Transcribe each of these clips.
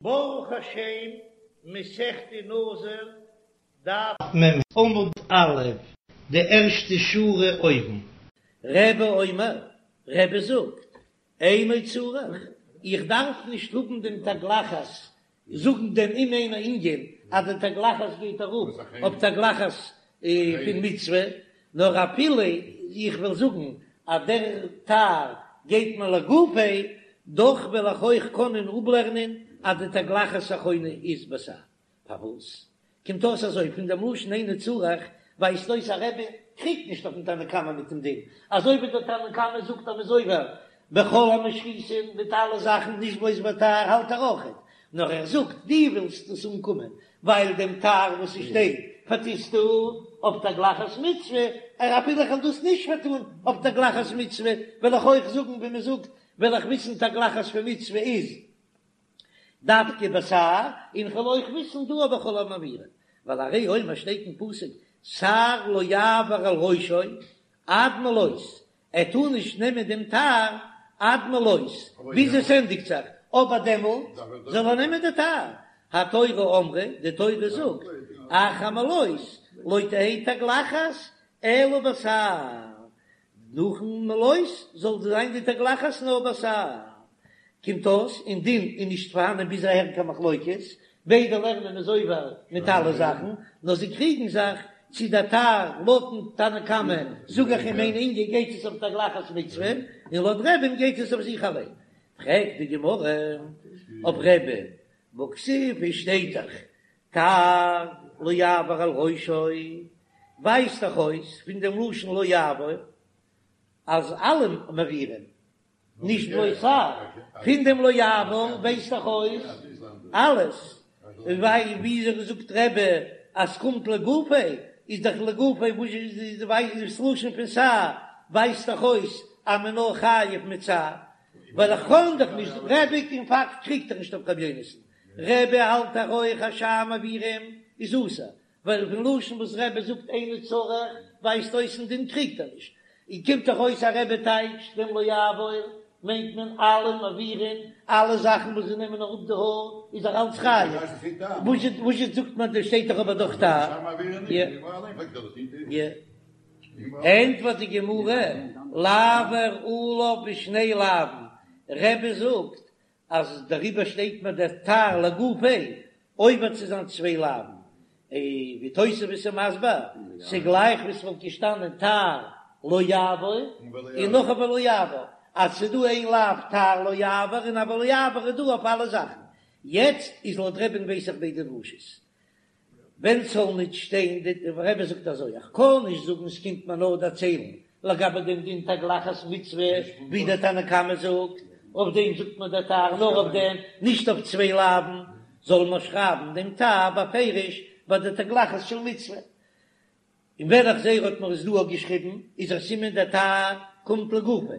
ברוך השם, מסכת נזיר, דף מ' עמוד א', די ערשטע שורה אויבן. רבי אומר, רבי זאגט, אינו צריך, איך דארף נישט האבן דעם תגלחת, זאגן דעם אם אינו ענין אז די תגלחת גייט ארויף אויף תגלחת פון מצוה, נאר אפילו איך וועל זאגן אז דער תער גייט מיר לגופיה, דאך וועל איך אויך קענען אפלערנען אז די תגלחת אחרונה איז בתער. פארוואס קומט אויס אזוי? פון דעם לשון אינו צריך ווייזט אויס אז רבי קריגט נישט אויפן תנא קמא מיט דעם דין, אזוי ווי דער תנא קמא זאגט אז מ'איז עובר בכל המשחיתין מיט אלע זאכן נישט בלויז בתער האלט ער אויכעט, נאר ער זאגט דו ווילסט עס אנקומען ווייל דעם תער וואס עס שטייט פארטוסטו אויף תגלחת מצוה, ער אפילו איך וועל דאס נישט פארטון אויף תגלחת מצוה וועל איך אויך זאגן ווי מען זאגט וועל איך וויסן תגלחת פון מצוה איז דווקא בתער, און כ'וועל אויך וויסן דא אויף בכל המעבירין, ווייל הרי הוא אומר שטייט אין פסוק תער לא יעבור על ראשו עד מלאות, ער טאר נישט נעמען דעם תער עד מלאות ביז עס ענדיגט זיך, אבער דעמאלט זאל ער נעמען די תער, התורה אמרה, די תורה זאגט, אחר מלאות לא תהא תגלחת אלא בתער, נאכן מלאות זאל זיין די תגלחת נאר בתער. קומט אויס אין דין איז נישט פארהאנען ביז אהער קיין מחלוקת, ביידע לערנען מ'איז עובר מיט אלע זאכן, נאר זיי קריגן זיך צו דער תער לויטן תנא קמא זאג איך אם אינו ענין גייט עס אויף תגלחת מצוה, און לויט רבי'ן גייט עס אויף זיך אליין. פרעגט די גמרא אויף רבי'ן, והכתיב עס שטייט דאך תער לא יעבור על ראשו, ווייזט דאך אויס פון דעם לשון לא יעבור אז אלע מעבירים, נישט בלויז תער, פון דעם לא יעבור ווייזט דאך אויס אלעס, ווייל וויאזוי זאגט רבי אז ס'קומט לגופיה, איז דאך לגופיה וואס איז דאס לשון פון תער ווייזט דאך אויס אז מען נאר חייב מיט תער, ווייל איך קען דאך נישט, רבי אין פאקט קריגט ער נישט אויף רבי יונתן, רבי האלט דאך אויך אז שאר מעבירים איז אסור, ווייל פון לשון וואס רבי זאגט אינו צריך ווייזט אויס אין דין קריגט ער נישט, און קומט דאך אויס אז רבי טייטשט דעם לא יעבור מיינט מען אלע מעבירים, אלע זאכן וואס זיי נעמען אראפ די האר איז ער אלץ חייב, וואס זאגט מען דא שטייט דאך אבער דאך תער. ענטפערט די גמרא, לעבור עליו בשני לאווין, רבי זאגט אז דעריבער שטייט מיר דער תער לגופיה עובר צו זיין צוויי לאווין, און ווי תוספות איז מסביר, ס'גלייך ווי ס'וואלט געשטאנען תער לא יעבור און נאך א ולא יעבור, אז ס'דא איין לאו תער לא יעבור און א ולא יעבור איז דא אויף אלע זאכן, יעצט איז לויט רבי'ן ווייס איך ביידע דרשות. ווען ס'זאל ניט שטיין, די רבי זאגט אזוי, איך קען נישט זאגן ס'קומט מיר נאר דערציילן לגבי דעם דין תגלחת מצוה, ווי דער תנא קמא זאגט, אויף דעם זאגט מען דער תער נאר אויף דעם, נישט אויף צוויי לאווין, זאל מען שרייבן דעם תער בפירוש ביי די תגלחת של מצוה. און ווען איך זעה ער האט מיר עס דא געשריבן איז א סימן דער תער קומט לגופו,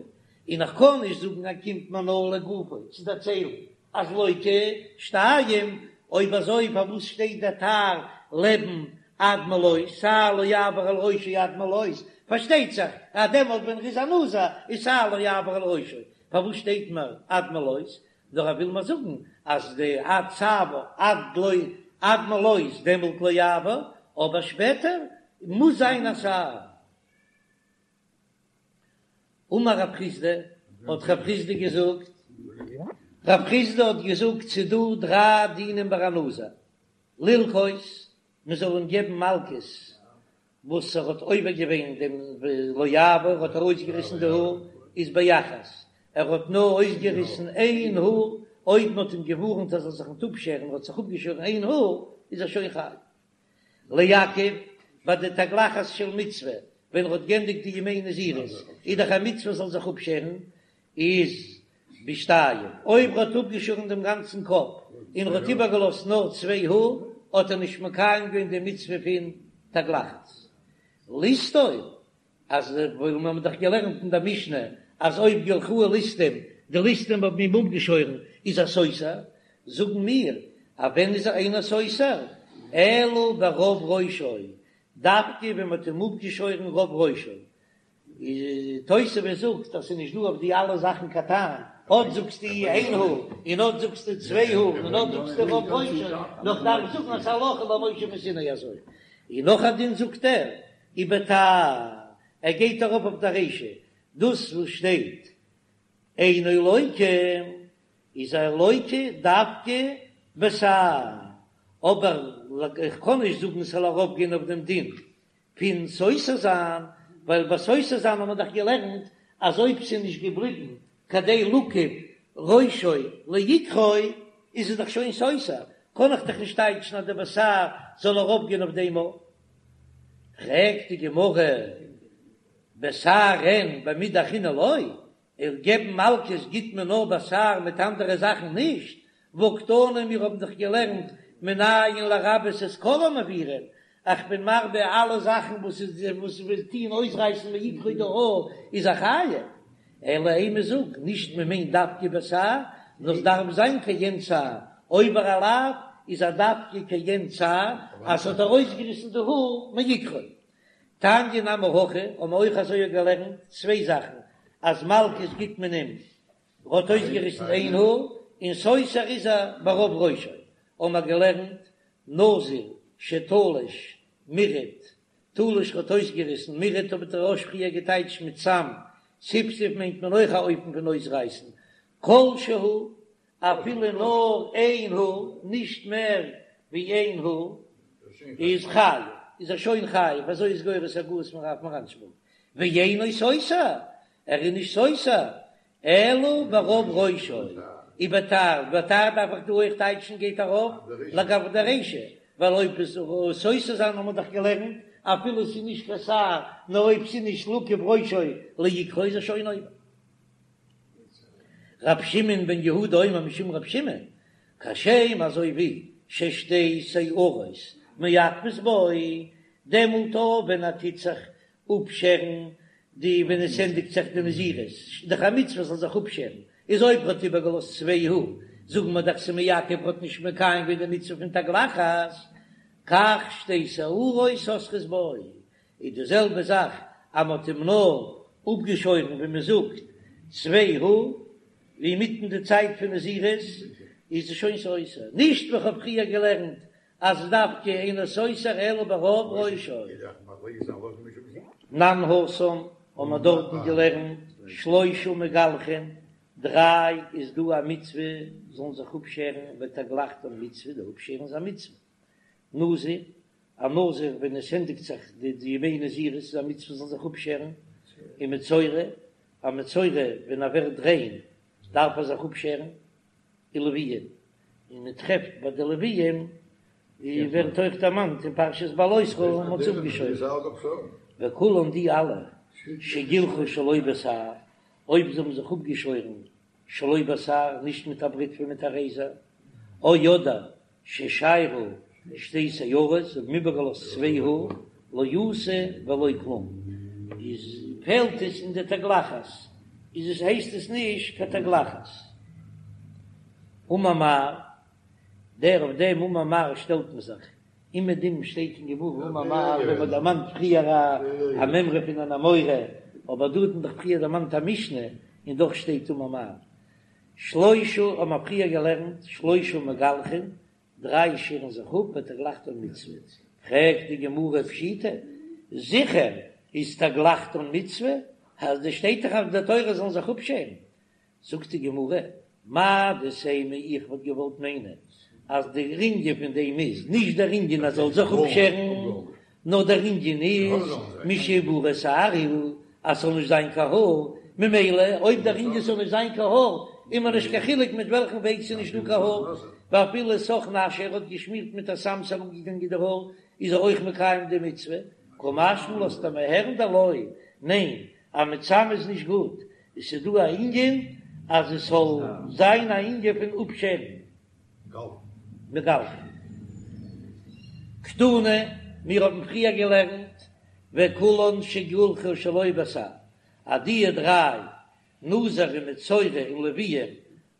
און איך קען נישט זאגן אז קומט מיר נאר לגופו צו דערציילן אז לוקה שתיים, אויב אזוי פארוואס שטייט דער תער לעבן עד מלאות, תער לא יעבור על ראשו עד מלאות, פארשטייט זיך אז דעמאלט ווען ער איז א נזיר איז תער לא יעבור על ראשו, פארוואס שטייט מיר עד מלאות, נאר ער וויל מיר זאגן אז די עד צוואר עד לא עד מלאות דעמאלט לא יעבור, אבער שפעטער מוז זיין א תער. אמר רב חסדא, האט רב חסדא געזאגט, רב חסדא האט געזאגט ס'דא דריי דינים ביי א נזיר, ללקות, מען זאל אים געבן מלקות וואס ער האט עובר געווען דעם לא יעבור, ער האט ארויסגעריסן די האר, איז באחת, ער האט נאר אויסגעריסן איין האר, אויב מען האט אים געווארנט ער זאל זיך ניט אפשערן, ער האט זיך אפגעשוירן איין האר, איז ער שוין חייב. לעכב, ביי די תגלחת של מצוה, ווען ער האט גענדיגט די ימי נזירות, איז דאך א מצוה זאל זיך אפשערן, איז בשתיים, אויב ער האט אפגעשארן דעם גאנצן קאפ און ער האט איבערגעלאזט נאר צוויי האר, האט ער נישט מקיים געווען די מצוה פון תגלחת. לסתור, אז ווייל מיר האבן דאך געלערנט אין דער משנה אז אויב גילחוהו ליסטים, די ליסטים האבן אים אפגעשוירן, איז ער סותר, זאגן מיר אז ווען איז ער אינו סותר, אלא ברוב ראשו, דווקא ווען מען האט אים אפגעשוירן רוב ראשו, תוספות זאגט אז ס'איז נישט דא אויף די אלע זאכן קיין טעם. אט זאגסטו איין האר, און אט זאגסטו צוויי האר, און אט זאגסטו רוב ראשו, נאר כ'דארף זאגן אז ס'הלכה למשה מסיני אזוי. און נאך א דין זאגט ער, ובתער, ער גייט ארויף אויף די רישא, דאס וואס שטייט אינו לוקה איז ער לוקה דווקא בתער, אבער איך קען נישט זאגן ס'זאל ארויפגיין אויף דעם דין פון סותר זיין, ווייל ביי סותר זיין האט מען דאך געלערנט אז אויב ס'איז נישט געבליבן כדי לכוף ראשו לעיקרו איז עס דאך שוין סותר, קען איך דאך נישט טייטשן אז די בתער זאל ארויפגיין אויף דעם אויך. פרעגט די גמרא, בתער אין במידי אחרינא לא, אויף געבן מלקות גיט מען נאר בתער מיט אנדערע זאכן נישט, והקתני מיר האבן דאך געלערנט מנין לרבות את כל המעבירין, איך בין מרבה אלע זאכן וואס איז וואס וואס טוהן אויסרייסן מעיקרו די האר איז ער חייב, אלא אימא זאג נישט מען מיינט דווקא בתער, נאר עס דארף זיין כעין שער, עובר א לאו איז ער דווקא כעין שער אז ס'האט ארויסגעריסן די האר מעיקרו. תניא נמי הכי, האבן מיר אויך אזוי געלערנט צוויי זאכן, אז מלקות גיט מען אים, ר'האט אויסגעריסן איין האר, און סותר איז ער ברוב ראשו, האבן מיר געלערנט נזיר שתלש מירט, תלש האט אויסגעריסן, מירט האט דער רא"ש פריער געטייטשט מיט סם, סיפסף מיינט מען אויך א אופן פון אויסרייסן, כל שהוא, אפילו נאר איין האר, נישט מער ווי איין האר, איז חייב, איז ער שוין חייב, אזוי איז גורס הגהות פון רב מרנשבורג, ואינו סותר, ער איז נישט סותר, אלא ברוב ראשו, ובתער, בתער דארף איך דא אויך טייטשן גייט ארויף לגבי די רישא, ווייל אויב עס סותר זיין האבן מיר דאך געלערנט, אפילו ס'איז נישט קיין שער, נאר אויב ס'איז נישט לכוף ראשו לעיקרו איז ער שוין עובר. רב שמעון בן יהודה אומר משום רב שמעון, כשם אזוי ווי ששתי שערות מעכבות בו, דעמאלט אויך ווען ער טוט זיך אפשערן די ווען עס ענדיגט זיך די נזירות, דאך א מצוה זאל זיך אפשערן, איז אויב ער האט איבערגעלאזט צוויי האר, זאגן מיר דאך ס'מעכב ער האט נישט מקיים געווען די מצוה פון תגלחת, כך שתי שערות סותרות בו, איז די זעלבע זאך אז מען האט אים נאר אפגעשוירן ווי מען זאגט צוויי האר אינמיטן די צייט פון נזירות איז עס שוין סותר, נישט ווי כ'האב פריער געלערנט אז דווקא אינו סותר אלא ברוב ראשו. תנן התם האבן מיר דארטן געלערנט שלושה מגלחין, דריי איז דא א מצוה זאלן זיך אפשערן ותגלחתן מצוה, די אפשערן איז א מצוה, נזיר, א נזיר ווען עס ענדיגט זיך די ימי נזירות איז א מצוה זאל זיך אפשערן, און מצורע, א מצורע ווען ער ווערט ריין דארף ער זיך אפשערן, און לוויים, און מען טרעפט ביי די לוויים ווי ווערט אויך דערמאנט אין פרשת בהעלותך מען האט זיי אפגעשוירן, וכולן די אלע שגילחו שלא בתער, אויב זיי האבן זיך אפגעשוירן שלא בתער, נישט מיט א בריטווע מיט א רעיזער, או אדער ששיירו שתי שערות, זיי האבן איבערגעלאזט צוויי האר, לא עשו ולא כלום, איז פעלט עס אין די תגלחת, איז עס הייסט עס נישט קיין תגלחת. אמר מר, דער אויף דעם אמר מר שטעלט מען זיך, אומעדום שטייט אין גמרא אמר מר ווען מען דערמאנט פריער א מימרא פון אן אמורא, אבער דא האט מען דאך פריער דערמאנט א משנה און דאך שטייט אמר מר. שלושה האבן מיר פריער געלערנט, שלושה מגלחין, דריי שערן זיך אפ ותגלחתן מצוה, פרעגט די גמרא פשיטא, זיכער איז תגלחתן מצוה, אז דא שטייט דאך אין די תורה זאלן זיך אפשערן, זאגט די גמרא, מהו דתימא איך וואלט געוואלט מיינען אז דער ענין פון דעם איז נישט דער ענין אז זאל זיך אפשערן, נאר דער ענין איז משיברא שער הוא אז ס'זאל נישט זיין קיין האר, ממילא אויב דער ענין ס'זאל נישט זיין קיין האר איז מיר נישט קיין חילוק מיט וועלכן וועג ס'איז נישט דא קיין האר, ואפילו סך נשא ער האט געשמירט מיט א סם ס'איז אראפגעגאנגען די האר איז ער אויך מקיים די מצוה, קא משמע לן לאזט ער מיר הערן דלא, ניין אז מיט סם איז נישט גוט, עס איז דא א ענין אז עס זאל זיין א ענין פון אפשערן. מגלחין. קתני, מיר האבן פריער געלערנט וכולן שגלחו שלא בתער, אז די דריי, נזיר און מצורע און לוויים,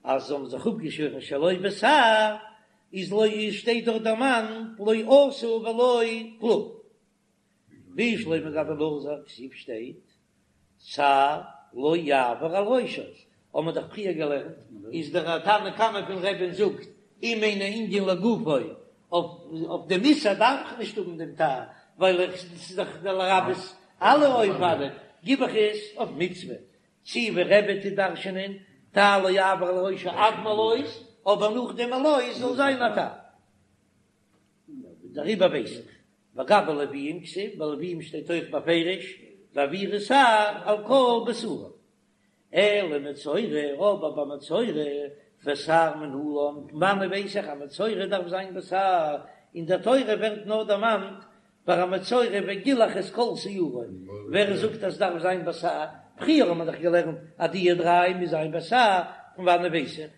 אז זיי האבן זיך אפגעשוירן שלא בתער, איז לא שטייט דארט דערמאנט לא עשו ולא כלום. בשלמא גבי נזיר כתיב שטייט שער לא יעבור על ראשו. האבן מיר דאך פריער געלערנט, איז דער תנא קמא פון רבי'ן זאגט, אם אינו ענין לגופו, אויף דעם איסור דארף איך נישט האבן דעם תער, ווייל איך ס'איז דאך לרבות אלע אופנים, גיב איך עס אויף מצוה, צי ווי רבי טוט דרש'ענען, תער לא יעבור על ראשו עד מלאות, אבער נאך דעם מלאות זאל זיין א תער. דעריבער ווייס איך, וגבי לוויים כתיב, ביי לוויים שטייט אויך בפירוש, והעבירו תער על כל בשרם. אלא מצורע, אבער ביי מצורע, בתער מנלן, פון וואנען ווייס איך אז מצורע דארף זיין בתער, אין דער תורה ווערט נאר דערמאנט ביי א מצורע וגילח את כל שערו, ווער זאגט אז ס'דארף זיין בתער? פריער האט מען דאך געלערנט אז די דריי מוז זיין בתער, פון וואנען ווייס איך?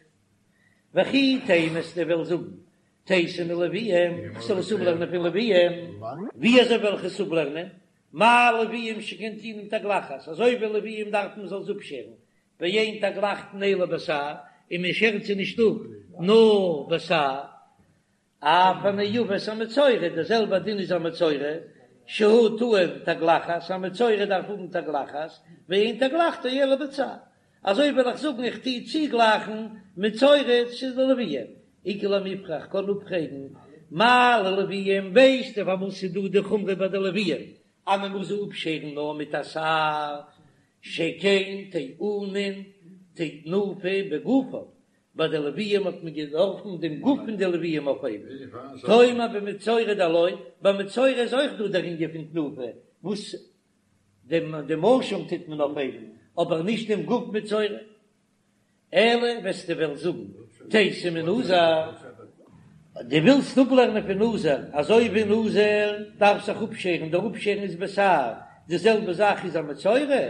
וכי תימא וועסטו וועלן זאגן תיתי מלוויים, כ'זאל עס אפלערנען פון לוויים, ווי אזוי וועל איך עס אפלערנען? מה לוויים שכן טעונין תגלחת, אזוי ווי לוויים דארף מען זאל זיי אפשערן, ואין תגלחתן אלא בתער, און מען שערט זיי נישט אפ נאר בתער, אף הנאבות המצורע, דער זעלבער דין איז א מצורע, שהוא טעון תגלחת, א מצורע דארף האבן תגלחת, ואין תגלחתו אלא בתער, אזוי וועל איך זאגן איך טוה צוגלייכן מצורע צו די לוויים, איכא למיפרך קען אפפרעגן מה ללוויים, ווייסטו פארוואס ס'איז דא די חומרא ביי די לוויים אז מען מוז זיי אפשערן נאר מיט א תער, שכן טעונין תנופה בגופם, ביי די לוויים האט מען געדארפן דעם גוף פון די לוויים אויפהייבן, תאמר במצורע דלא, ביי מצורע איז אויך דא דער ענין פון תנופה, וואס דעם דעם אשם טוט מען אויפהייבן, אבער נישט דעם גוף מצורע. אלא וועסטו וועלן זאגן תיתי מנזיר, דו ווילסט אפלערנען פון נזיר, אזוי ווי נזיר דארף זיך אפשערן, דער אפשערן איז בתער, די זעלבע זאך איז א מצורע,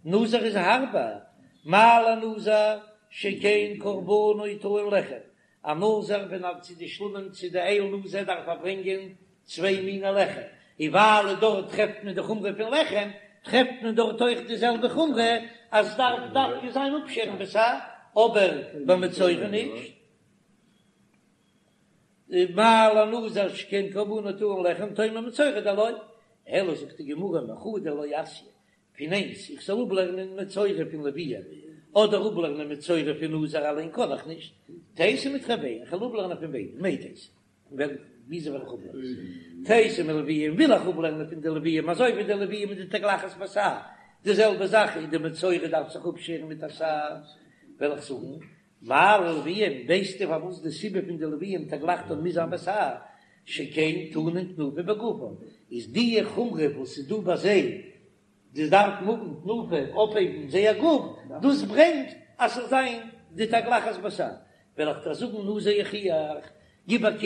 נזיר איז הארבער, מה לנזיר שכן קרבנו טעון לחם, א נזיר ווען ער צו די שלמים צו די איל נזיר דארף ער ברענגען צוויי מיני לחם, און ווייל דארט טרעפט מען די חומרא פון לחם, טרעפט מען דארט אויך די זעלבע חומרא אז עס דארף דווקא זיין אפשערן בתער, אבער ביי מצורע נישט. מה לנזיר שכן קרבנו טעון לחם תאמר במצורע דלא, אלא זאגט די גמרא מחדא לא אתיא, פון איינס, איך זאל אפלערנען מצורע פון לוויים, אדער אפלערנען מצורע פון נזיר אליין קען איך נישט, תיתי מתרוייהו, איך וועל אפלערנען פון ביידע, מאי תיתי, ווען, וויאזוי וועל איך אפלערנען? תיתי מלוויים, וויל איך אפלערנען פון די לוויים, אזוי ווי די לוויים מיט די תגלחת בתער, די זעלבע זאך איז די מצורע דארף זיך אפשערן מיט א תער, וועל איך זאגן, מה ללוויים, ווייסטו פארוואס די סיבה פון די לוויים תגלחתן מוז זיין בתער, שכן טעונין תנופה בגופם, איז די חומרא וואס איז דא ביי זיי, די דארפן האבן תנופה אויפהייבן זייער גוף, דאס ברענגט אז ס'זאל זיין די תגלחת בתער, וועל איך דיר זאגן נזיר יוכיח, גיב א קוק,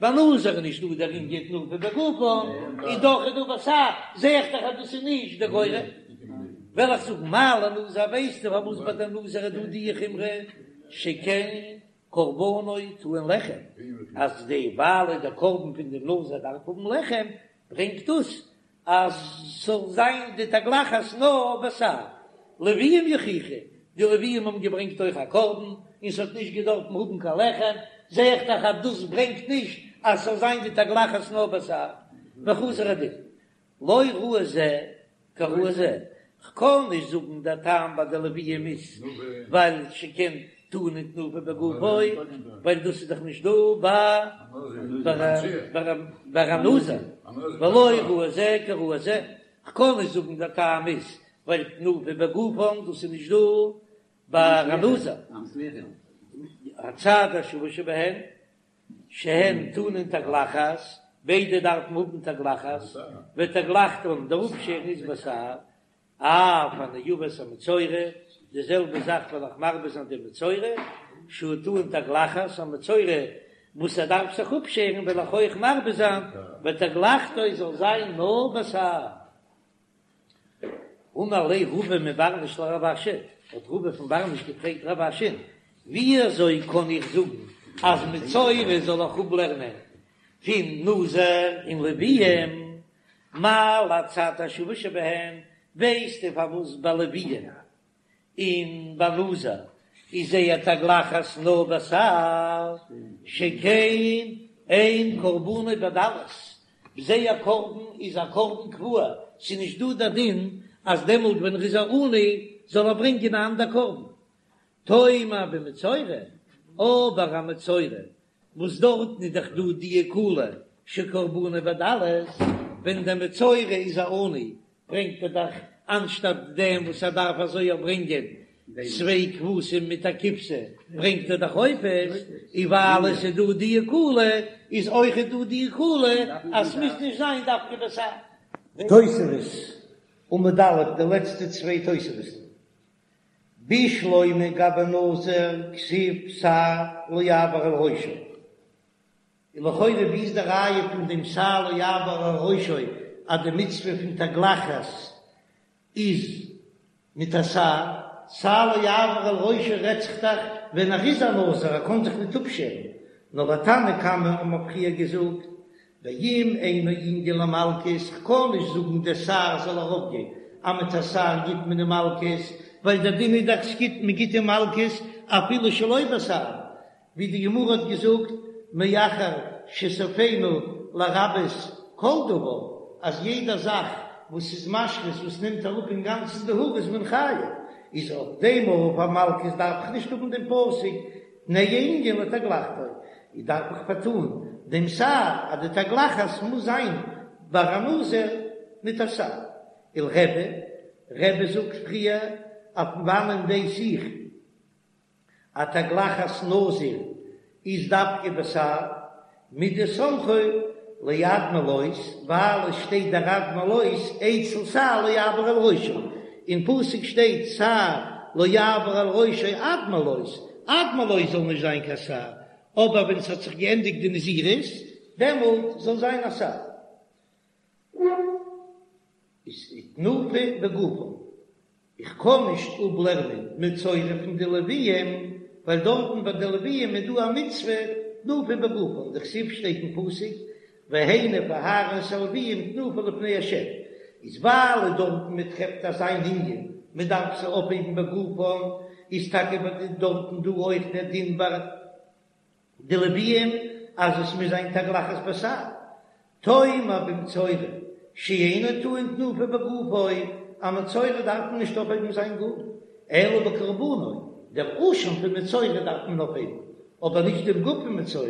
ביי נזיר איז נישט דא דער ענין תנופה בגופם, און דאך איז דא בתער, זע איך דאך אז דאס איז נישט די גורם. וועל איך זאגן מה לנזיר, ווייסטו פארוואס ביי די נזיר איז דא די חומרא, שכן קרבנו טעון לחם, אז די ווייל דער קרבן פון דעם נזיר דארף האבן לחם, ברענגט דאס אז ס'זאל זיין די תגלחת נאר בתער. לוויים יוכיחו, די לוויים האבן געברענגט אויך א קרבן, און ס'האט נישט געדארפן האבן קיין לחם, זע איך דאך אז דאס ברענגט נישט אז ס'זאל זיין די תגלחת נאר בתער. וחזר הדין, לא ראי זה כראי זה, כ'קען נישט זאגן דער טעם ביי די לוויים איז ווייל שכן טעונין תנופה בגופו, ווייל דאס איז דאך נישט דא ביי א נזיר, ולא ראי זה כראי זה, כ'קען נישט זאגן דער טעם איז ווייל תנופה בגופם דאס איז נישט דא ביי א נזיר, הצד השווה שבהן שהן טעונין תגלחת, ביידע דארפן האבן תגלחת, ותגלחתן, דער אפשערן איז בתער, אף הנאבות המצורע, די זעלבע זאך וועל איך מרבה זיין די מצורע, שהוא טעון תגלחת, א מצורע וואס ער דארף זיך אפשערן וועל איך אויך מרבה זיין, ותגלחתו זאל זיין נאר בתער. אמר ליה רבא מבר נש לרב אשי, האט רבא פון בר נש געפרעגט רב אשי'ן, ווי אזוי קען איך זאגן אז מצורע זאל איך אפלערנען פון נזיר און לוויים, מה להצד השווה שבהן, ווייסטו פארוואס ביי לוויים און ביי נזיר איז זייער תגלחת נאר בתער, שכן אין קרבנו בדלות, זייער קרבן איז א קרבן קבוע, ס'איז נישט דא דער דין אז דעמאלט ווען ער איז א עני זאל ער ברענגען א אנדער קרבן. תאמר במצורע, אבער א מצורע וואס דארטן איז דאך דא די קולא שקרבנו בדלות, ווען דער מצורע איז א עני ברענגט ער דאך אנשטאט דעם וואס ער דארף אזוי ברענגען צוויי כבשים מיט א כבשה ברענגט ער דאך עופות, און ווייל עס איז דא די קולא איז אויכעט דא די קולא אז ס'מוז נישט זיין דווקא בתער. תוספות, עמוד א', די לעצטע צוויי תוספות'ן. בשלמא גבי נזיר כתיב שער לא יעבור על ראשו. און לכאורה ווי איז די ראיה פון דעם שער לא יעבור על ראשו אז די מצוה פון תגלחת איז מיט א שער? שער לא יעבור על ראשו רעדט זיך דאך ווען ער איז א נזיר ער קען זיך ניט אפשערן, נאר לתנא קמא האבן מיר פריער געזאגט ואם אינו ענין למלקות, כ'קען נישט זאגן דער שער זאל ארויפגיין, אז מיט א שער גיט מען אים מלקות, ווייל דער דין איז דאך ס'גיט מען גיט אים מלקות אפילו שלא בשער, ווי די גמרא האט געזאגט מאחר שסופינו לרבות כל דבר, אז יעדע זאך וואס איז משחית וואס נעמט אראפ אינגאנצן די האר איז מען חייב, איז אויף דעם אויף א מלקות דארף איך נישט האבן דעם פסוק תנהו ענין לתגלחתו, איז דארף איך פארטאן דעם שער אז די תגלחת מוז זיין ביי א נזיר מיט א שער. ולרבי, רבי זאגט פריער אז פון וואנען ווייס איך אז תגלחת נזיר איז דווקא בתער מדסמכו לעד מלאות, ווייל עס שטייט דער עד מלאות אצל שער לא יעבור על ראשו, אין פסוק שטייט שער לא יעבור על ראשו עד מלאות, עד מלאות זאל נישט זיין קיין שער, אבער ווען ס'האט זיך געענדיגט די נזירות דעמאלט זאל זיין א שער. איז תנופה בגופן. איך קען נישט אפלערנען מצורע פון די לוויים, ווייל דארטן ביי די לוויים איז דא א מצוה תנופה בגופן, דכתיב שטייט אין פסוק והניף אהרן את הלוויים תנופה לפני ה', איז ווייל דארטן מען טרעפט אזא ענין מען דארף זיי אויפהייבן בגופן, איז טאקע דארטן דא אויך דער דין ביי די לוויים אז עס מוז זיין תגלחת בתער, תאמר במצורע שאינו טעון תנופה בגופו, א מצורע דארף מען נישט אויפהייבן זיין גוף, אלא בקרבנו, דער אשם פון מצורע דארף מען אויפהייבן, אבער נישט דעם גוף פון מצורע,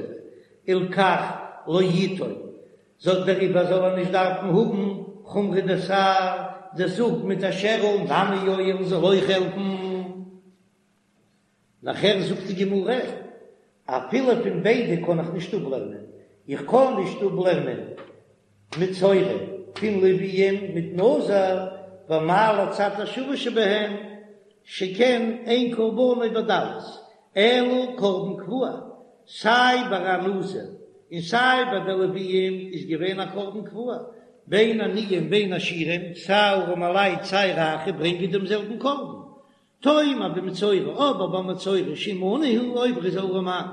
הלכך לא יטעון, זאל דעריבער זאל ער נישט דארפן האבן חומרא דשער, דער זאג מיט א שערל נמי יועיל זאל אויך העלפן. נאכער זאגט די גמרא, אפילו פון ביידע קען איך נישט אפלערנען, איך קען נישט אפלערנען מצורע פון לוויים מיט נזיר, ומה לצד השוה שבהן, שכן אין קרבנו בדלות, אלא קרבן קבוע, סיי ביי א נזיר און סיי ביי די לוויים איז געווען א קרבן קבוע, בין עניים בין עשירים, סיי ארעמעלייט סיי רייכע ברענגען דעם זעלבן קרבן, תאמר במצורע, אבער ביי מצורע שאם עני הוא אויב ער איז אן ארעמאן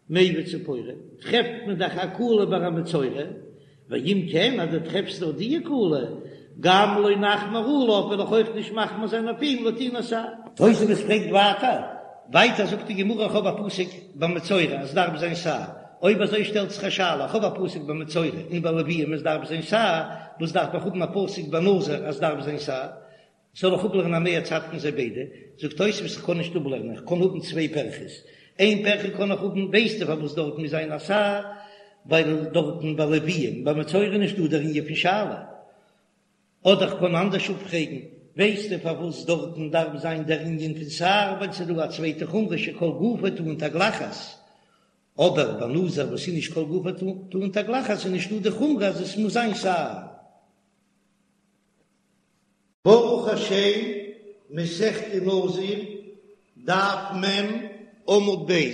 מביא ציפורים, טרעפט מען דאך א קולא ביי א מצורע, ואם כן אז דו טרעפסט דאך די קולא, גם לא נחמיר עליו וועל איך אויך נישט מחמיר זיין אויף אים לטעינת שער. תוספות פרעגט ווייטער, ווייטער זאגט די גמרא איך האב א פסוק ביי מצורע אז דארף זיין שער, אויב אזוי שטעלט זיך א שאלה איך האב א פסוק ביי מצורע און ביי לוויים עס דארף זיין שער, וואס דארף איך האבן א פסוק ביי נזיר אז דארף זיין שער? זאל איך אפלערנען א מה צד פון זיי ביידע? זאגט תוספות איך קען נישט אפלערנען, איך קען האבן צוויי פירכות, איין פירכא קען איך האבן, ווייסטו פארוואס דארט מוז זיין א שער, ווייל דארטן ביי לוויים ביי מצורע איז נישט דא דער ענין פון שאלה, אדער איך קען אנדערש אפפרעגן, ווייסטו פארוואס דארטן דארף זיין דער ענין פון שער, ווייל ס'איז דא א צווייטע חומרא שכל גופו טעון תגלחת, אבער ביי נזיר וואס איז נישט כל גופו טעון תגלחת איז נישט דא די חומרא אז עס מוז זיין שער. ברוך השם, מסכת נזיר, דף מ', עמוד ב',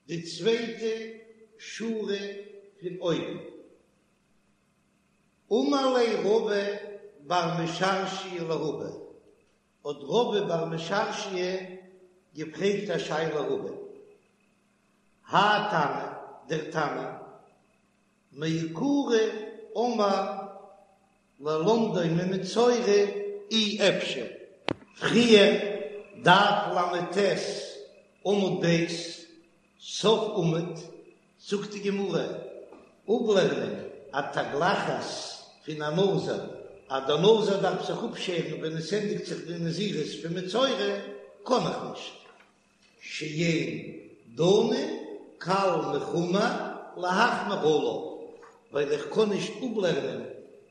די צווייטע שורה פון אויבן. אמר ליה רבא בר משרשיא לרבא, האט רבא בר משרשיא געפרעגט א שאלה רבא, האי תנא, דער תנא, מעיקרא אמר ללמדו ממצורע אי אפשר. פריער, דף ל"ט עמוד ב', סוף עמוד, זאגט די גמרא, אפלערנען א תגלחת פון א נזיר, אז דער נזיר דארף זיך אפשערן ווען עס ענדיגט זיך די נזירות פון מצורע, קען איך נישט. שאין דנין קל מחמור להחמיר עליו, ווייל איך קען נישט אפלערנען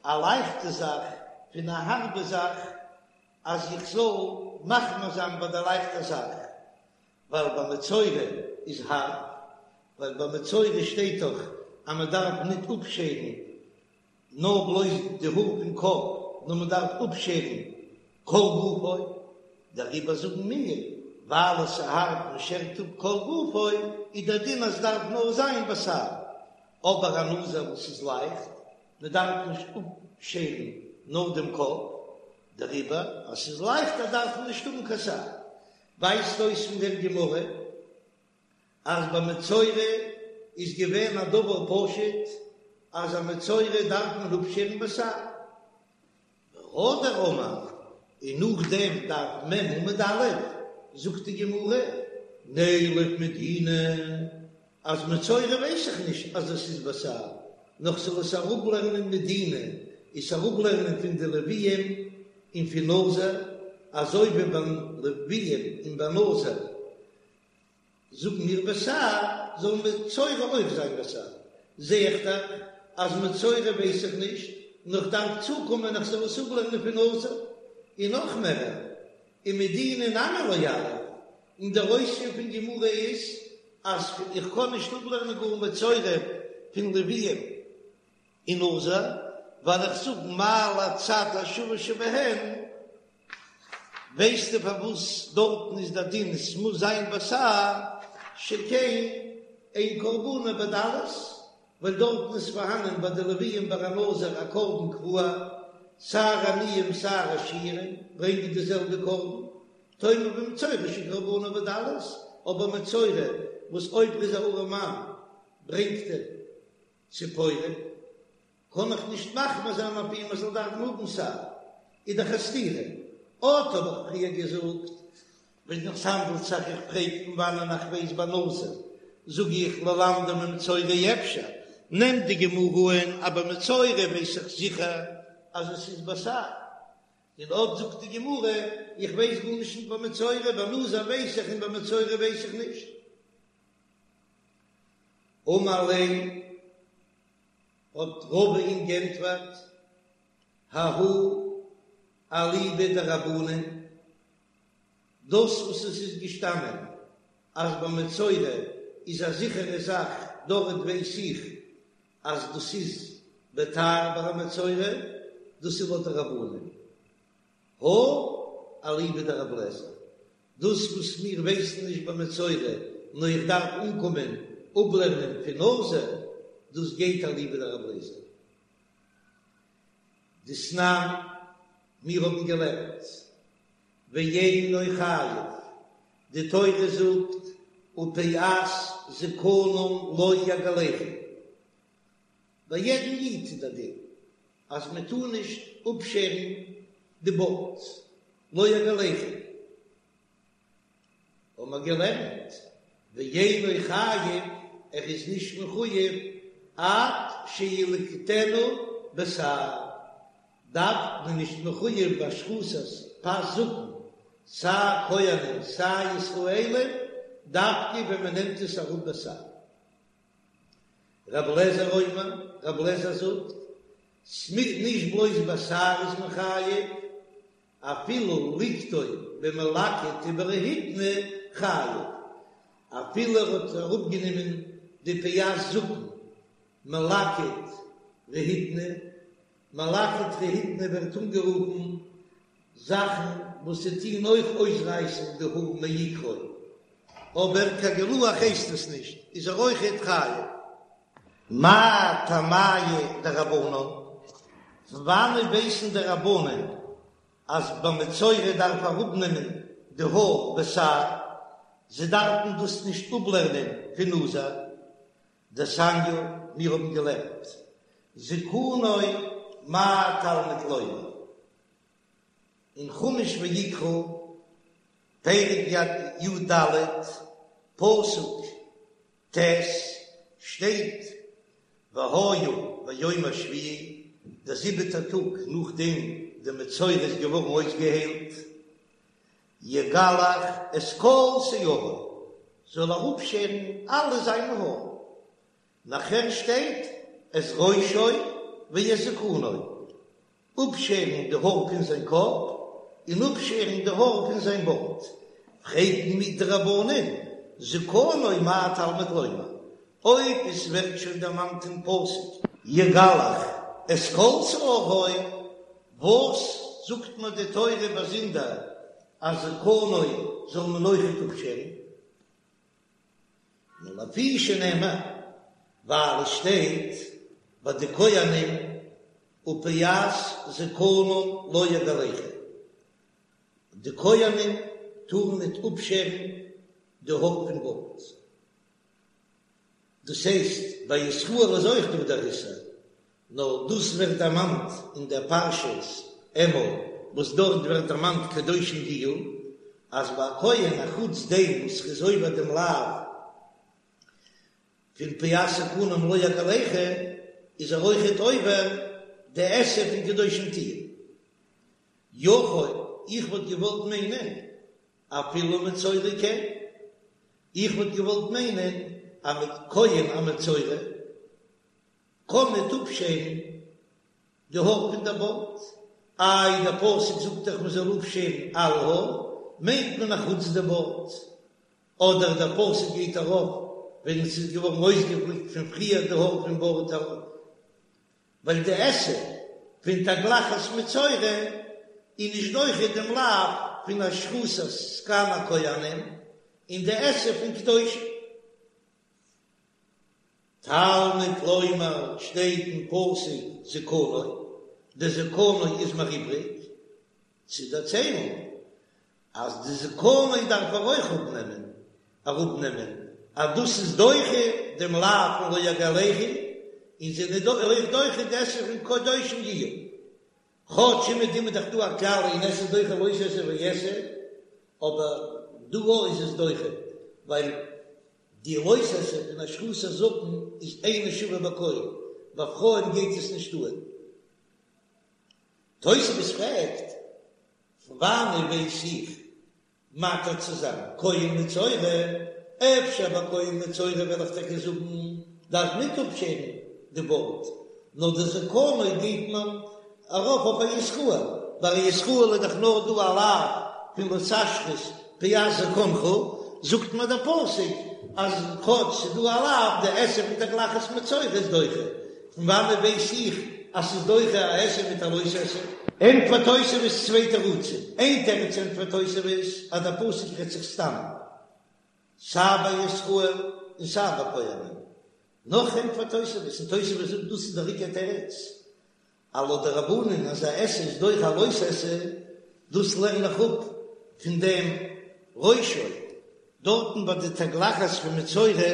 א לייכטע זאך פון א הארבע זאך אז איך זאל מחמיר זיין ביי די לייכטע זאך, ווייל ביי מצורע איז הארב, ווייל ביי מצורע שטייט דאך אז מען דארף ניט אפשערן נאר בלויז די האר פון קאפ, נאר מען דארף אפשערן כל גופו, דעריבער זאגן מיר, ווייל עס איז הארב מען שערט אפ כל גופו, איז דער דין אז דארף נאר זיין בתער, אבער א נזיר וואס איז לייכט, מען דארף נישט אפשערן נאר דעם קאפ, דעריבער אז ס'איז לייכטער דארף מען נישט האבן קיין תער. ווייזט אויס פון דער גמרא אז ביי מצורע איז געווען א דבר פשוט אז א מצורע דארף מען אפשערן בתער. והדר אמר, און נאכדעם דף מ' עמוד א', זאגט די גמרא, נילף מדינא, אז מצורע ווייס איך נישט אז עס איז בתער, נאר כ'זאל עס אראפלערנען מדינא, עס אראפלערנען פון די לוויים און פון נזיר, אזוי ווי ביי לוויים און ביי נזיר זאגן מיר בתער, זאל מצורע אויך זיין בתער. זע איך דאך אז מצורע ווייס איך נישט, נאר כ'דארף צוקומען איך זאל עס אפלערנען פון נזיר, און נאך מערער, ומדינא נמי לא יליף, און דער אויספיר פון גמרא איז אז איך קען נישט אפלערנען גאר מצורע פון לוויים און נזיר, ווייל איך זאג מה להצד השווה שבהן, ווייסטו פארוואס דארטן איז דער דין עס מוז זיין בתער שכן אין קרבנו בדלות, ווייל דארטן איז פארהאנען ביי די לוויים ביי א נזיר א קרבן קבוע, סיי עניים סיי עשירים ברענגען די זעלבע קרבן, תאמר במצורע שקרבנו בדלות, אבער מצורע וואס אויב ער איז א ארעמאן ברענגט ער ציפורים, קען איך נישט מחמיר זיין אויף אים ער זאל דארפן האבן תער, איז דאך א סתירה. אט האב איך פריער געזאגט, ווען עס האנדלט זיך איך פרעג פון וואנען איך ווייס ביי נזיר, זאג איך ללמדו ממצורע אפשר, נעמט די גמרא אן אז ביי מצורע ווייס איך זיכער אז עס איז בתער, און אט זאגט די גמרא איך ווייס גארנישט נישט ביי מצורע, ביי נזיר ווייס איך און ביי מצורע ווייס איך נישט. אמר ליה האט רבא אים גענטפערט, ההוא אליבא דרבנן, דאס וואס עס איז געשטאנען אז ביי מצורע איז א זיכערע זאך, דארט ווייס איך אז דאס איז בתער ביי א מצורע, דאס איז לויט די רבנן. הא אליבא דרבי אליעזר, דאס וואס מיר ווייסן נישט ביי מצורע, נאר איך דארף אנקומען אפלערנען פון נזיר, דאס גייט אליבא דרבי אליעזר. דתנן, מיר האבן געלערנט, ואינו חייב, די תורה זאגט, ופאת זקנם לא יגלחו, ביי יעדן איד איז דער דין אז מען טאר נישט אפשערן די בארד, לא יגלחו, האבן מיר געלערנט, ואינו חייב, ער איז נישט מחויב עד שילקטנו בתער, דארף מען נישט מחויב בהשחתת פאת זקן, סיי כהנים סיי ישראלים, דווקא ווען מען נעמט עס אראפ בתער. רבי אליעזר אומר, רבי אליעזר זאגט, ס'מיינט נישט בלויז בתער איז מען חייב, אפילו ליקטו במלקט וברהיטני חייב, אפילו ער האט אראפגענומען די פאת זקן מלקט רהיטני, מלקט רהיטני ווערט אנגערופן זאכן וואס ס'טוהן אויך אויסרייסן די האר מעיקרא, אבער קיין גילוח הייסט עס נישט, איז ער אויכעט חייב. מאי טעמייהו דרבנן? פון וואנעט ווייסן די רבנן אז ביי מצורע דארף אראפנעמען די האר בתער? זיי דארפן דאס נישט אפלערנען פון נזיר. דתניא, מיר האבן געלערנט זקנו מה תלמוד לומר אין חומש ויקרא, פרק י"ד, פסוק ט', שטייט והיה ביום השביעי, דער זיבעטער טאג נאכדעם די מצורע איז געווארן אויסגעהיילט, יגלח את כל שערו. זאל ער אפשערן אלע זיינע האר. נאכער שטייט את ראשו ואת זקנו, אפשערן די האר פון זיין קאפ און אפשערן די האר פון זיין בארד, פרעגן מיר די רבנן, זקנו מה תלמוד לומר, אויב עס ווערט שוין דערמאנט אין פסוק יגלח את כל שערו, וואס זאגט מיר די תורה באזונדער אז זקנו זאל מען אויכעט אפשערן? נאר לפי שנאמר, ווייל עס שטייט ביי די כהנים ופאת זקנם לא יגלחו, די כהנים טארן ניט אפשערן די האר פון בארד. דאס הייסט, ביי ישראל איז אויך דא דער איסור, נאר דאס ווערט דערמאנט אין דער פרשת אמור, וואס דארט ווערט דערמאנט קדושים תהיו, אז ביי א כהן א חוץ דעם וואס ר'איז עובר דעם לאו פון פאת זקנם לא יגלחו, איז ער אויכעט עובר די עשה פון קדושים תהיו. יכול, איך וואלט געוואלט מיינען אפילו מצורע כן, איך וואלט געוואלט מיינען אז א כהן א מצורע קען ניט אפשערן די האר פון דער בארד, איי דער פסוק זאגט דאך מען זאל אפשערן אלע האר, מיינט מען אחוץ די בארד, אדער דער פסוק גייט ארויף ווען עס איז געווארן אויסגעפליקט פון פריער די האר פון בארד, ווייל די עשה פון תגלחת מצורע איז נישט דוחה דעם לאו פון השחתת זקן הכהנים און די עשה פון קדושים. תלמוד לומר שטייט אין פסוק זקנו, די זקנו איז מיר איבריג צו דערציילן אז די זקנו דארף ער אויך אפנעמען, אראפנעמען, אז דאס איז דוחה דעם לאו פון לא יגלחו, און ס'איז אויך דוחה די עשה פון קדושים יהיו. כאטש אומעטום איז דאך דא א כלל אין עשה דוחה לא תעשה ועשה, אבער דא איז עס דוחה, ווייל די לא תעשה פון השחתת זקן איז אינה שווה בכל, ביי פרויען גייט עס נישט אן. תוספות פרעגט, פון וואנען ווייס איך מתיר צו זיין כהן מצורע? אפשר ביי כהן מצורע וועל איך טאקע זאגן דארף ניט אפשערן די בארד, נאר די זקנו גייט מען ארויף אויף א ישראל, ביי א ישראל איז דאך נאר דא א לאו פון לא תשחית פאת זקנך, זאגט מיר דער פסוק אז כאטש ס'איז דא א לאו, די עשה פון תגלחת מצורע איז דוחה, פון וואנעט ווייס איך אז ס'איז דוחה א עשה מיט א לא תעשה? ענטפערט תוספות צוויי תירוצים, איין תירוץ ענטפערט תוספות אז דער פסוק רעדט זיך סתם סיי ביי ישראל און סיי ביי כהנים, נאך ענטפערט תוספות, און תוספות זאגט דאס איז דער עיקר תירוץ, אז לויט די רבנן אז א עשה איז דוחה א לא תעשה, דאס לערן איך אפ פון דעם ראשו דארטן ביי די תגלחת פון מצורע,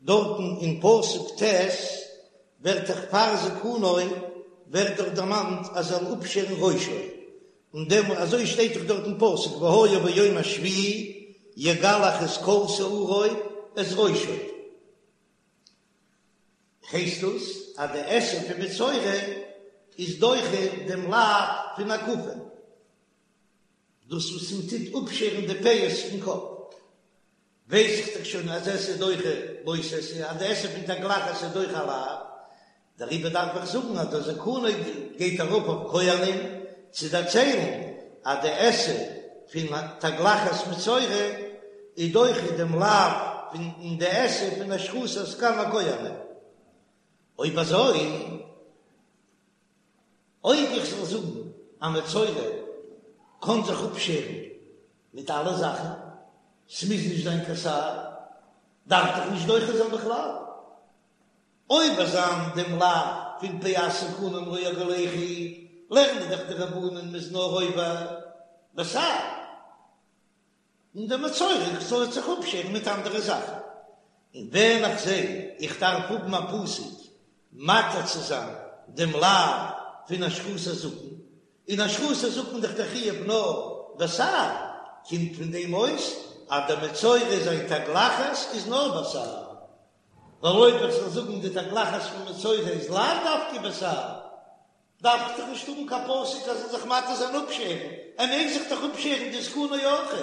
דארטן אין פסוק ט' ווערט דאך פאר זקנו ווערט דאך דערמאנט אז ער זאל אפשערן ראשו, און דעם אזוי שטייט דאך דארט אין פסוק והיה ביום השביעי יגלח את כל שערו את ראשו, הייסט דאס אז די עשה פון מצורע איז דוחה דעם לאו פון הקפה, דאס וואס מען טוט אפשערן די פאות פון קאפ. ווייס איך דאך שוין אז עשה דוחה לא תעשה, אז די עשה פון תגלחת איז דוחה א לאו, דעריבער דארף איך זאגן אז דער זקנו גייט ארויף אויף כהנים צו דערציילן אז די עשה פון תגלחת מצורע איז דוחה דעם לאו פון די עשה פון השחתת זקן הכהנים. אויב אזוי. אויב איך זאל זאגן א מצורע קען זיך אפשערן מיט אלע זאכן, ס'מוז נישט זיין קיין שער, דארף דאך נישט דוחה זיין בכלל. עובר זיין דעם לאו פון פאת זקנם לא יגלחו, לערנען דאך די רבנן מ'איז נאר עובר בתער. און דער מצורע זאל זיך אפשערן מיט אנדערע זאכן, און ווען איך זע איך דארף האבן א פסוק מתיר צו זיין דעם לאו פון השחתת זקן, און השחתת זקן דאך דער חיוב נאר בתער, קומט פון דעם אויס אז דער מצורע זיין תגלחת איז נאר בתער, ווייל אויב איך זאל זאגן די תגלחת פון מצורע איז לאו דווקא בתער, דארף איך דאך נישט האבן קיין פסוק אז ער זאל זיך מתיר זיין אפשערן, ער מעג זיך דאך אפשערן די זקנו אויכעט,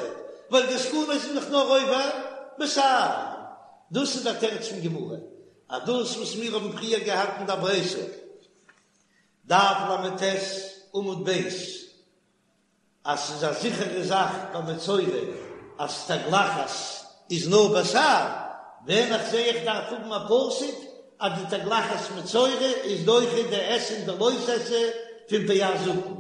ווייל די זקנו איז דאך נאר עובר בתער. בתער. דאס איז דער תירוץ פון גמרא, אז דאס וואס מיר האבן פריער געהאט אין דער ברייתא, דף ל"ט עמוד ב', אז ס'איז א זיכערע זאך ביי מצורע אז תגלחת איז נאר בתער, ווען איך זע איך דארף האבן א פסוק אז די תגלחת מצורע איז דוחה די עשה און די לא תעשה פון פאת זקן,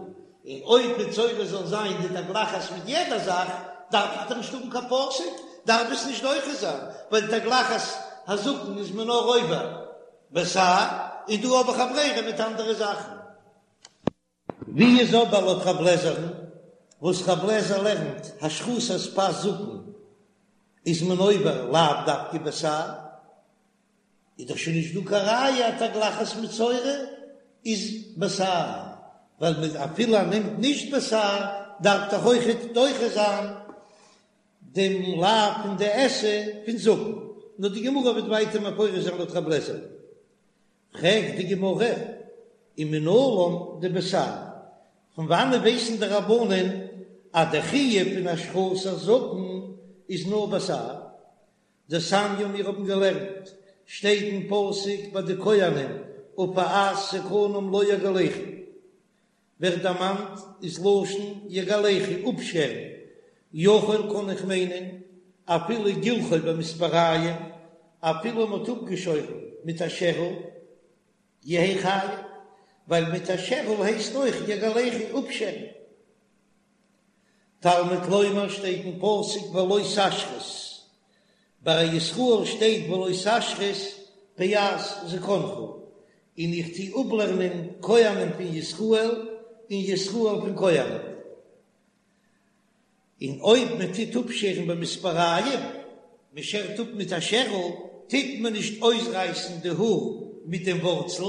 און אויב מצורע זאל זיין די תגלחת מיט יעדע זאך דארף איך דאך נישט האבן קיין פסוק, דארף עס נישט דוחה זיין, ווייל תגלחת הזקן איז מען נאר עובר בתער, און דא האב איך א ברירה מיט אנדערע זאכן. ווי איז אבער לויט רב לעזער'ן, וואס רב לעזער לערנט השחתת פאת זקן איז מען עובר לאו דווקא בתער, איז דאך שוין נישט דא קיין ראיה אז תגלחת מצורע איז בתער, ווייל מיט אפילו ער נעמט נישט בתער דארף דאך אויכעט דוחה זיין דעם לאו פון די עשה פון זקן, נאר די גמרא וועט ווייטער מפרש זיין לויט רב לעזער. פרעגט די גמרא, ומנלן דבתער, פון וואנען ווייסן די רבנן אז די חיוב פון השחתת זקן איז נאר בתער? דתניא מיר האבן געלערנט, שטייט אין פסוק ביי די כהנים ופאת זקנם לא יגלחו, ווערט דערמאנט איז לשון יגלחו אפשערן, יכול קען איך מיינען אפילו גילחו במספריים, אפילו מ'האט אפגעשוירן מיט א שערל, יהא חייב, ווייל מיט א שערל הייסט אויך יגלחו אפשערן. תלמוד לומר שטייט אין פסוק ולא תשחית, ביי א ישראל שטייט ולא תשחית פאת זקנך, און איך טו אפלערנען כהנים פון ישראל און ישראל פון כהנים. און אויב מען טוט אפשערן במספריים, מען שערט אפ מיט א שערל, טוט מען נישט אויסרייסן די האר מיט דעם ווארצל,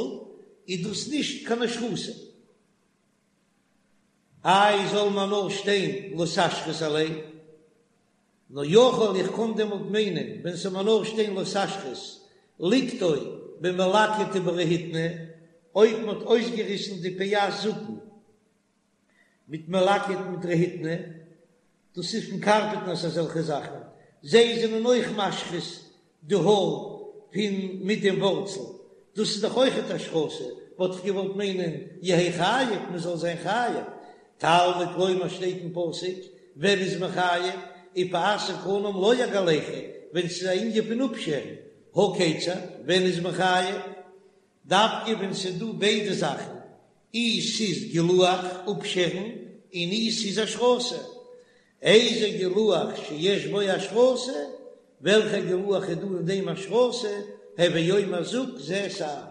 איז דאס נישט קיין השחתה. איי זאל מען נאר שטיין לא תשחית עליה? נאר יכול איך קען דעמאלט מיינען ווען ס'זאל מיר נאר שטיין לא תשחית ליקטו במלקט וברהיטני, אויב מ'האט אויסגעריסן די פאת זקן מיט מלקט מיט רהיטני, דאס איז פון קארפענטערס אזעלכע זאכן, זיי זענען אויך משחית די האר פון מיט דעם ווארצל, דאס איז דאך אויכעט השחתה, וואלט איך געוואלט מיינען יהא חייב, מען זאל זיין חייב, תלמוד לומר שטייט אין פסוק, ווען איז מען חייב, ופאת זקנם לא יגלחו, ווען ס'איז א ענין פון אפשערן, הא כיצד, ווען איז מען חייב, דווקא ווען ס'איז דא ביידע זאכן, אי ס'איז גילוח, אפשערן, און אי ס'איז השחתה. איזה גילוח שיש בו השחתה, וועלכע גילוח איז דא אין דעם השחתה, הוי אומר זאג זה שער.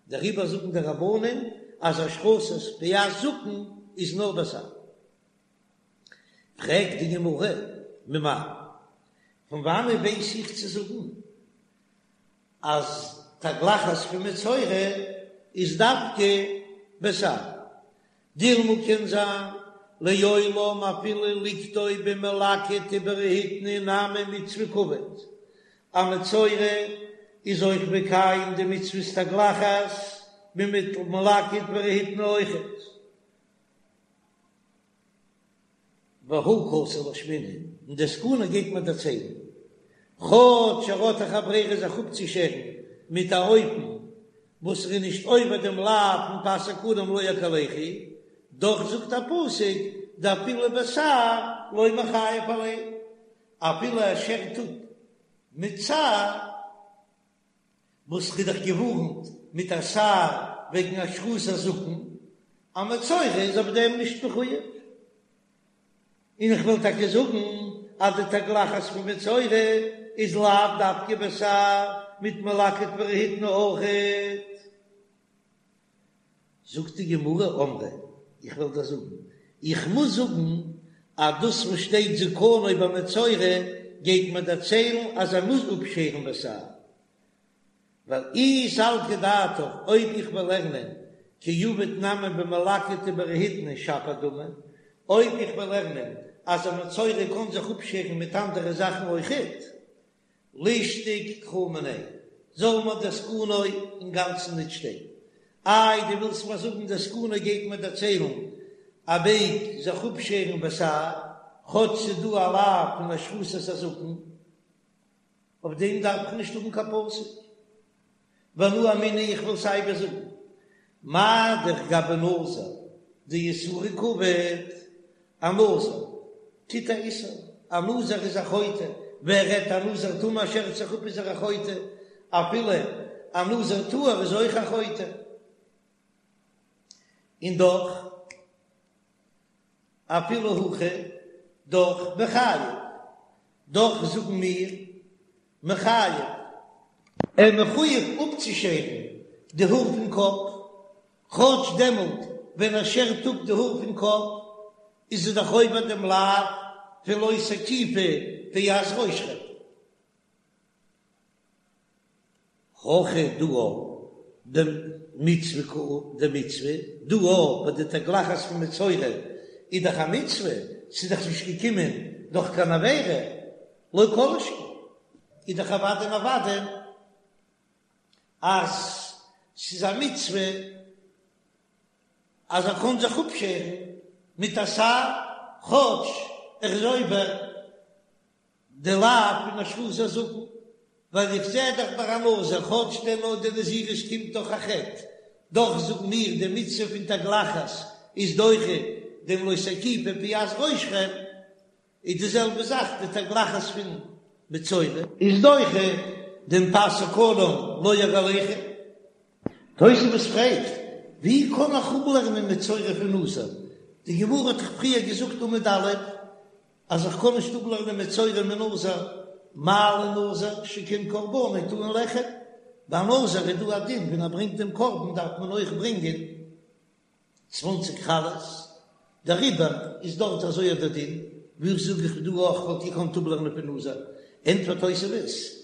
דעריבער זאגן די רבנן אז השחתת פאת זקן איז נאר בתער. פרעגט די גמרא, ממאי? פון וואנען ווייס איך צו זאגן אז תגלחת פון מצורע איז דווקא בתער. דילמא קען זיין לעולם אפילו ליקטו במלקט וברהיטני נמי מצוה קעביד. א מצורע איז אויך מקיים די מצוות תגלחת מיט מלקט ורהיטני אויכעט. והא קאתי לאשמועינן, און די זקנו גייט מען דערציילן, כאטש ער האט דאך א ברירה זיך אפצושערן מיט א אופן וואס ער איז נישט עובר דעם לאו פון פאת זקנם לא יגלחו, דאך זאגט א פסוק דאפילו בתער לא מיחייב עליה, אפילו ער שערט אפ מיט שער. וואס כ'האב דאך געווארנט מיט א שער וועגן השחתת הזקן, א מצורע איז אויף דעם נישט מחויב. און איך וויל טאקע זאגן אז די תגלחת פון מצורע איז לאו דווקא בתער מיט מלקט ורהיטני אויכעט. זאגט די גמרא, אמרי, איך וועל דיר זאגן, איך מוז זאגן אז דאס וואס שטייט זקנו ביי מצורע גייט מיר דערציילן אז ער מוז אפשערן בתער, ווייל אי סלקא דעתך, אויב איך וועל לערנען כי עביד נמי במלקט וברהיטני שפיר דמי, אויב איך וועל לערנען אז א מצורע קען זיך אפשערן מיט אנדערע זאכן אויכעט, לישתוק קרא מיניה, זאל מיר דער זקנו אינגאנצן ניט שטיין. איי, דו ווילסט מיר זאגן דער זקנו גייט מיר דערציילן אז מ'מעג זיך אפשערן בתער, כאטש ס'איז דא א לאו פון השחתת הזקן. אויף דעם דארף איך נישט האבן קיין פסוק. ואנא אמינא איך וועל סיי ווי זאגן, מה דאך גבי נזיר דאיסורא קעביד, א נזיר טוט א איסור, א נזיר איז א חוטא, ווער רעדט א נזיר טמא שערט זיך אפ איז ער א חוטא, אפילו א נזיר טהור איז אויך א חוטא, און דאך אפילו הכי דאך מיחייב, דאך זאגן מיר מיחייב. ער מחויב אפצושערן די האר פון קאפ, כאטש דעמאלט ווען ער שערט אפ די האר פון קאפ איז ער דאך עובר דעם לאו פון לא תקיפו פאת ראשכם. הכא דא דמצוה קא דמצוה דא ביי די תגלחת פון מצורע איז דאך א מצוה, ס'איז דאך נישט געקומען דורך קיין עבירה, לא כל שכן איז דאך אוודאי און אוודאי אז ס'איז א מצוה אז ער קען זיך אפשערן מיט א שער כאטש ער איז עובר די לאו פון השחזת הזקן, ווייל איך זע דאך ביי א נזיר כאטש דער נאר די נזירות קומט דורך א חטא, דאך זאגן מיר די מצוה פון תגלחת איז דוחה דעם לא תקיפו פאת ראשכם, איז די זעלבע זאך די תגלחת פון מצורע. איז דוחה דעם פאת זקנם לא יגלחו. תוספות פרעגט, ווי קען איך אפלערנען מצורע פון נזיר? די גמרא האט דאך פריער געזאגט עמוד א' אז איך קען נישט אפלערנען מצורע מנזיר, מה לנזיר שכן קרבנו טעון לחם, ביי נזיר איז דא א דין ווען ער ברענגט דעם קרבן דארף מען אויך ברענגען צוואנציג חלות, דעריבער איז דארט אזוי אט דער דין, ווי זאג איך דא אויך וואלט געקאנט אפלערנען פון נזיר, ענטפערט תוספות,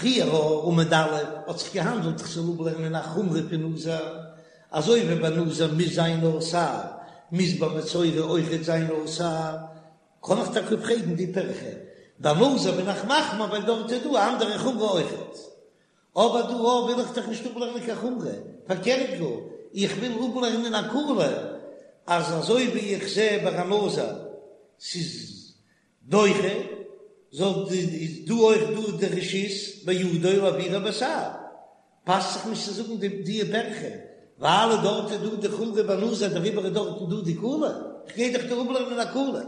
פריער עמוד א' האט זיך געהאנדלט איך זאל אפלערנען א חומרא פון נזיר, אזוי ווי ביי נזיר מוז זיין נאר שער, מוז ביי מצורע אויכעט זיין נאר שער, קען איך טאקע פרעגן די פירכא, ביי נזיר בין איך מחמיר ווייל דארט איז דא א אנדערע חומרא אויכעט, אבער דא אויך וויל איך דאך נישט אפלערנען קיין חומרא, פארקערט גאר, איך וויל אפלערנען א קולא, אז אזוי ווי איך זע ביי א נזיר ס'איז דוחה, זאל איז דא אויך דא די רשות בידו להעבירה בשער, פאסט זיך נישט צו זאגן די די פירכא, ווייל דארט איז דא די חומרא ביי נזיר דעריבער איז דארטן דא די קולא, כ'גיי דאך דא אפלערנען א קולא.